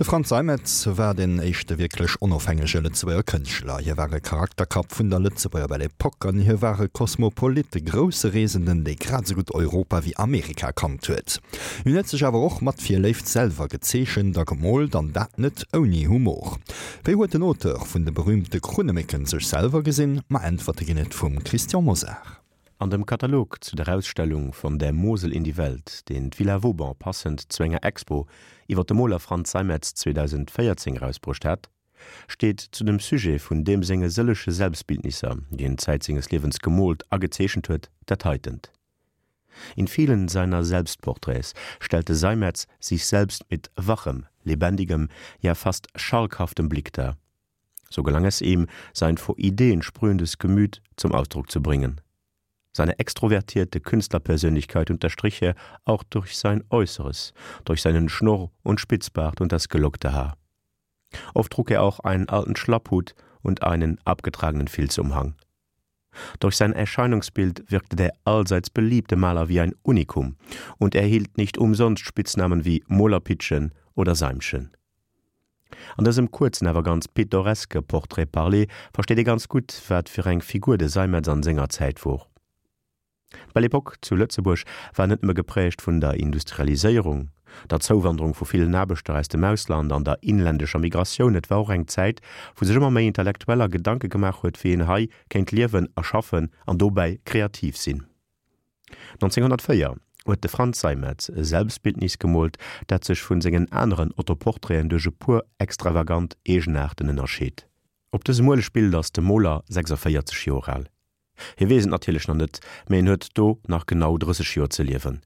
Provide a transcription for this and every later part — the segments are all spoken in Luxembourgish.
De Frantz Seimetz war deen éischte wierklech onofhängege Lëtzebuerger Kënschtler. Hie war e Charakterkapp vun der Lëtzebuerger Belle Epoque an hie war e Kosmopolit, e grousse Reesenden, dee grad esou gutt Europa wéi Amerika kannt huet. Hien huet sech awer och mat Virléift selwer gezeechent a gemoolt, an dat net ouni Humor. Wéi huet den Auteur vun de berüümte Krunnemécken sech selwer gesinn? Ma Äntwerte ginn et vum Christian Mosar. An dem Katalog zu der Ausstellung Von der Mosel in die Welt, deen d'Villa Vauban passend zu enger Expo iwwer de Moler Frantz Seimetz 2014 erausbruecht hat, steet zu dem Sujet vun deem senge sëllege Selbstbildnisser, déi en Zäit senges Liewens gemoolt a gezeechent huet, dat heitent. In vielen seiner Selbstporträts stellte Seimetz sich selbst mit wachem, lebendigem, ja fast schalkhaftem Blick dar. So gelang es ihm, sein vor Ideen sprühendes Gemüt zum Ausdruck zu bringen. Seine extrovertierte Künstlerpersönlichkeit unterstrich er auch durch sein Äußeres, durch seinen Schnurr und Spitzbart und das gelockte Haar. Oft trug er auch einen alten Schlapphut und einen abgetragenen Filzumhang. Durch sein Erscheinungsbild wirkte der allseits beliebte Maler wie ein Unikum und erhielt nicht umsonst Spitznamen wie Molerpitschen oder Seimchen. An dësem kuerzen awer ganz pittoreske Portrait parlé versteet ee ganz gutt, wat fir eng Figur de Seimetz an senger Zäit wor. D'Belle Epoque zu Lëtzebuerg war net nëmme geprägt vun der Industrialiséierung, der Zouwanderung vu villen Aarbechter aus dem Ausland an der inländescher Migratioun, et war och eng Zäit, wou sech ëmmer méi Intellektueller Gedanke gemaach huet, wéi een hei kéint liewen a schaffen an dobäi kreativ sinn. 1904 huet de Frantz Seimetz e Selbstbildnis gemoolt, dat sech vun sengen aneren Autoportraiten duerch e puer extravagant Eegenaarten ënnerscheet. Op dësem Uelegbild ass de Moler 46 Joer al. Hie weess et natierlech nach net, mee en huet do nach genau 30 Joer ze liewen.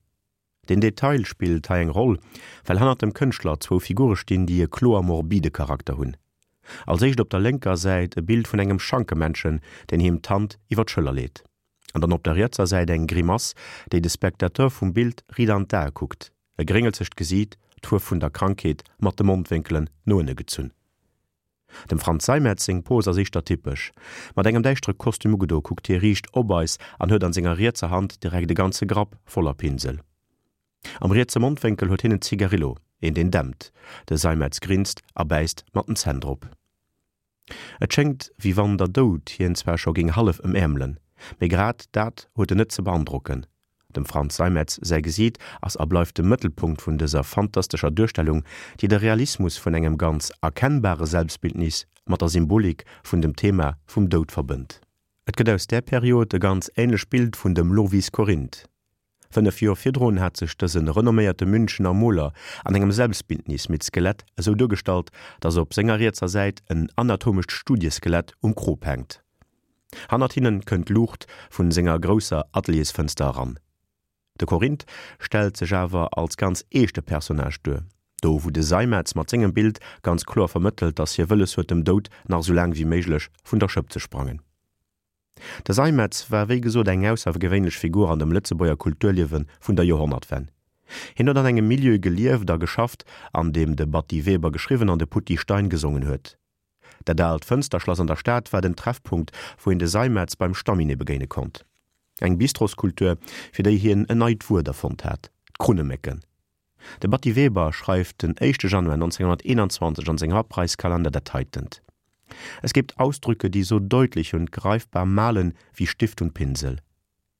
Den Detail spillt hei eng Roll, well hannert dem Kënschtler zwou Figure stinn, déi e kloer morbide Charakter hunn. Als éischt op der lénker Säit e Bild vun engem Schankemännchen, deen him d'Hand iwwer d'Schëller leet. An dann op der rietser Säit eng Grimass, déi de Spectateur vum Bild riit an d'Ae kuckt, e gréngelzegt Gesiit, d'Fuerf vun der Krankheet mat de Mondwénkelen no ënne gezunn. Dem Frantz Seimetz seng Pose ass éischter typesch. Mat engem däischtere Kostüm ugedo kuckt hie riicht op eis an huet an senger rietser Hand direkt e ganze Grapp voller Pinsel. Am rietse Mondwénkel huet hien en Zigarillo, een deen dämpt. De Seimetz grinst a bäisst mat den Zänn drop. Et schéngt wéi wann der Doud hien zwar scho géing hallef ëmäermelen, mee grad dat huet en net ze beandrocken. Dem Frantz Seimetz säi Gesiit ass a bleift de Mëttelpunkt vun dëser fantastescher Duerstellung, déi de Realismus vun engem ganz erkennbare Selbstbildnis mat der Symbolik vun dem Thema vum Doud verbënnt. Et gëtt aus där Period e ganz änlecht Bild vun dem Lovis Corinth. 5 Joer virdrun hat sech dëse renomméierte Münchener Moler an engem Selbstbildnis mit Skelett esou duergestallt, datt op senger rietser Säit en anatomescht Studieskelett um Krop hänkt. Hannert hinnen kënnt d'Luucht vun senger grousser Ateliersfënster eran. De Corinth stellt sech awer als ganz eeschte Personnage duer, do wou de Seimetz mat sengem Bild ganz kloer vermëttelt, datt hie wëlles huet dem Doud nach esou laang wéi méiglech vun der Schëpp ze sprangen. De Seimetz war wéi gesot eng aussergewéinlech Figur an dem Lëtzebuerger Kulturliewe vun der Joerhonnertwenn. Hien huet an engem Milieu gelieft a geschafft, an deem de Batty Weber geschriwwen an de Putty Stein gesongen huet. Dat aalt Fënsterschlass an der Stad war den Treffpunkt, wou een de Seimetz beim Stamminet begéine konnt. Eng Bistroskultur, fir déi hien en neit Wuert erfonnt hat, d'Krunnemécken. De Batty Weber schreift den éischte Januar 1921 an sengem Abreißkalender dat heitent, Es gibt Ausdrücke, die so deutlich und greifbar malen wie Stift und Pinsel.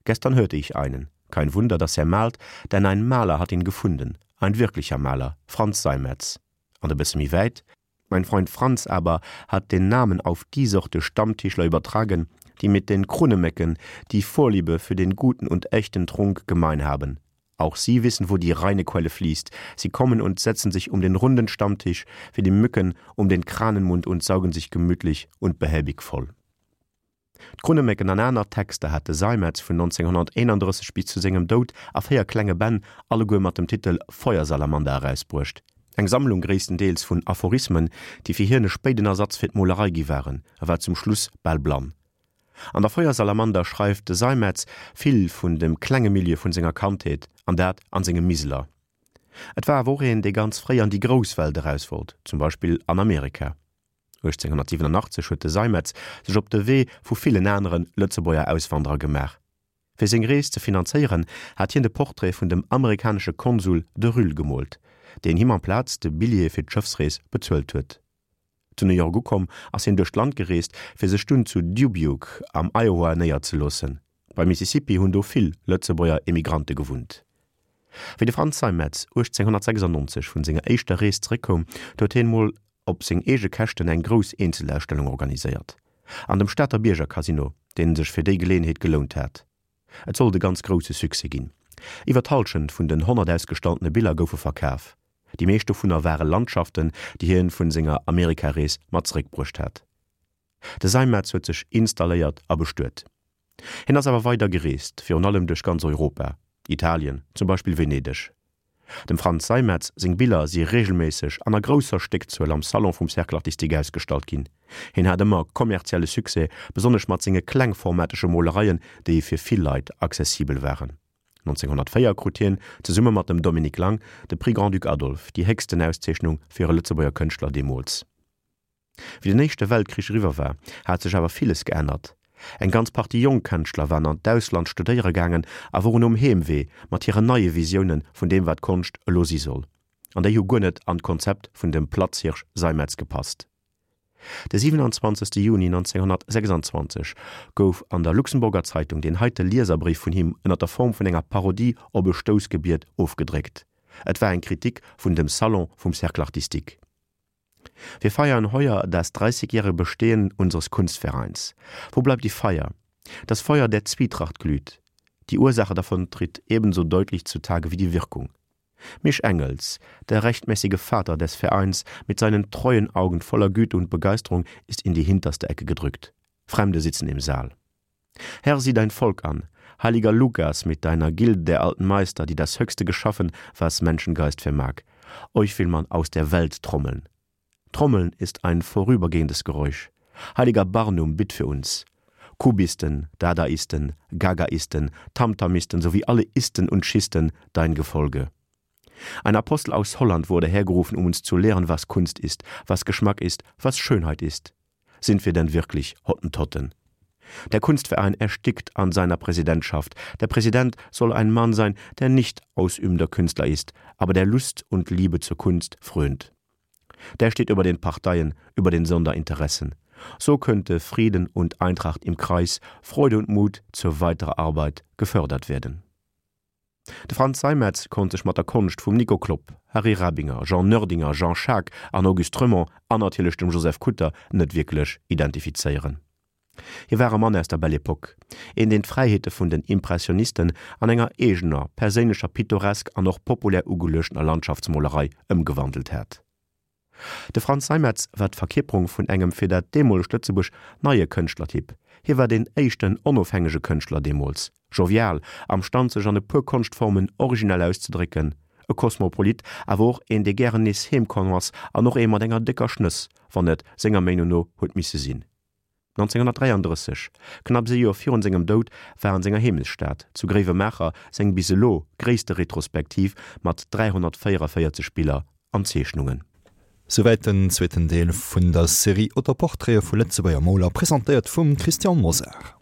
Gestern hörte ich einen. Kein Wunder, dass er malt, denn ein Maler hat ihn gefunden, ein wirklicher Maler, Franz Seimetz. An e bësse méi wäit, Mein Freund Franz aber hat den Namen auf die Sorte Stammtischler übertragen, die mit den Krunnemecken die Vorliebe für den guten und echten Trunk gemein haben. Auch sie wissen, wo die reine Quelle fließt. Sie kommen und setzen sich um den runden Stammtisch wie die Mücken um den Kranenmund und saugen sich gemütlich und behäbig voll. D'Krunnemécken an aner Texter hat de Seimetz vun 1931 bis zu sengem Doud a 4 klenge Bänn, alleguer mat dem Titel Feuersalamander erausbruecht. Eng Sammlung gréisstendeels vun Aphorismen, déi fir hien e spéiden Ersatz fir d'Molerei gi waren, e war zum Schluss bal blann. An der Feuersalamander schreift de Seimetz vill vun dem klenge Milieu vun senger Kandheet, an dat an sengem Miseler. Et war awer och een, dee ganz fréi an déi grouss Welt eraus wollt, zum Beispill an Amerika. 1887 huet de Seimetz sech op de Wee vu villen anere Lëtzebuerger Auswanderer gemaach. Fir seng Rees ze finanzéieren, hat hien de Portrait vun dem amerikanesche Konsul de Rühl gemoolt. deen him amplaz de Billjee fir d'Schëffsrees bezuelt huet. Zu New York ukomm, ass hien duerch d'Land gereest, fir sech dunn zu Dubuque am Iowa néierzeloossen. Beim Mississippi hunn do vill Lëtzebuerger Emigrante gewunnt. Wéi de Frantz Seimetz 1896 vun senger éischter Rees zeréckkoum, du huet hien mol op seng eege Käschten eng grouss Eenzelausstellung organiséiert an dem Stater Biergercasino, deen sech fir déi Geleeënheet gelount hat. Et sollt e ganz grousse Succès ginn. Iwwer d'Hallschent vun den 100 ausgestalltene Biller goufe verkaf. Déi meescht dovunner ware Landschaften, déi hien vun senger Amerikarees mat zeréckbruecht hat. De Seimetz huet sech installéiert a bestuet. Hien ass awer weider gereest, virun allem duerch ganz Europa, Italien, zum Beispill Venedeg. Dem Frantz Seimetz seng Biller si reegelméisseg an a grousser Stéckzuel am Salon vum Cercle artistique ausgestallt ginn. Hien hat ëmmer kommerzielle Succès, besonnesch mat senge klengformatege Molereien, déi fir vill Leit accessibel waren. 1904 krut hien, zesumme mat dem Dominique Lang, de Prix Grand-Duc Adolphe, déi héchsten Auszeechnung fir e Lëtzebuerger Kënschtler deemools. Wéi den Éischte Weltkrich eriwwer war, hat sech awer villes geännert. Eng ganz Partie jonk Kënschtler waren an d'Ausland studéiere gaangen a woren um Heemwee mat hiren neie Visioune vun deem wat Konscht elo si soll. An déi hu guer net an d'Konzept vun dem Platzhirsch Seimetz gepasst. De 27. Juni 1926 gouf an der Luxemburger Zeitung deen heite Lieserbréif vun him ënner der Form vun enger Parodie op e Stoussgebiet ofgedréckt. Et war eng Kritik vun dem Salon vum Cercle artistique. Wir feiern heuer das 30-jährige Bestehen unseres Kunstvereins. Wo bleibt die Feier? Das Feuer der Zwietracht glüht. Die Ursache davon tritt ebenso deutlich zutage wie die Wirkung. Misch Engels, der rechtmäßige Vater des Vereins, mit seinen treuen Augen voller Güte und Begeisterung ist in die hinterste Ecke gedrückt. Fremde sitzen im Saal. Herr, sieh dein Volk an, heiliger Lukas mit deiner Gilde der alten Meister, die das Höchste geschaffen, was Menschengeist vermag. Euch will man aus der Welt trommeln. Trommeln ist ein vorübergehendes Geräusch. Heiliger Barnum, bitt für uns. Kubisten, Dadaisten, Gagaisten, Tamtamisten sowie alle Isten und Schisten, dein Gefolge. Ein Apostel aus Holland wurde hergerufen, um uns zu lehren, was Kunst ist, was Geschmack ist, was Schönheit ist. Sind wir denn wirklich Hottentotten? Der Kunstverein erstickt an seiner Präsidentschaft. Der Präsident soll ein Mann sein, der nicht ausübender Künstler ist, aber der Lust und Liebe zur Kunst frönt. Der steht über den Parteien, über den Sonderinteressen. So könnte Frieden und Eintracht im Kreis, Freude und Mut zur weiterer Arbeit gefördert werden. De Frantz Seimetz konnt sech mat der Konscht vum Nico Klopp, Harry Rabinger, Jean Noerdinger, Jean Schaack an Auguste Reumont an natierlech dem Joseph Kutter net wierklech identifizéieren. Hie war e Mann aus der Belle Epoque, een deen d'Fräiheete vun den Impressionisten an enger eegener, perséinlecher pittoresk an och populär ugeluechtener Landschaftsmolerei ëmgewandelt hat. De Frantz Seimetz war d'Verkierperung vun engem fir dat deemolegt Lëtzebuerg neie Kënschtlertyp. Hie war deen éischten onofhängege Kënschtler deemools, jovial, am Stand sech an e puer Konschtformen originell auszedrécken, e Kosmopolit, awer och een dee gären nees heem komm ass an och ee mat enger décker Schnëss, wann et senger Meenung no huet misse sinn. 1933, knapps ee Joer virun sengem Doud, war an senger Heemechtsstad, zu Gréiwemaacher, seng bis elo gréisste Retrospektiv mat 344 Biller an Zeechnungen. Souwäit den zweeten Deel vun der Serie Autoportraite vu Lëtzebuerger Moler, presentéiert vum Christian Mosar.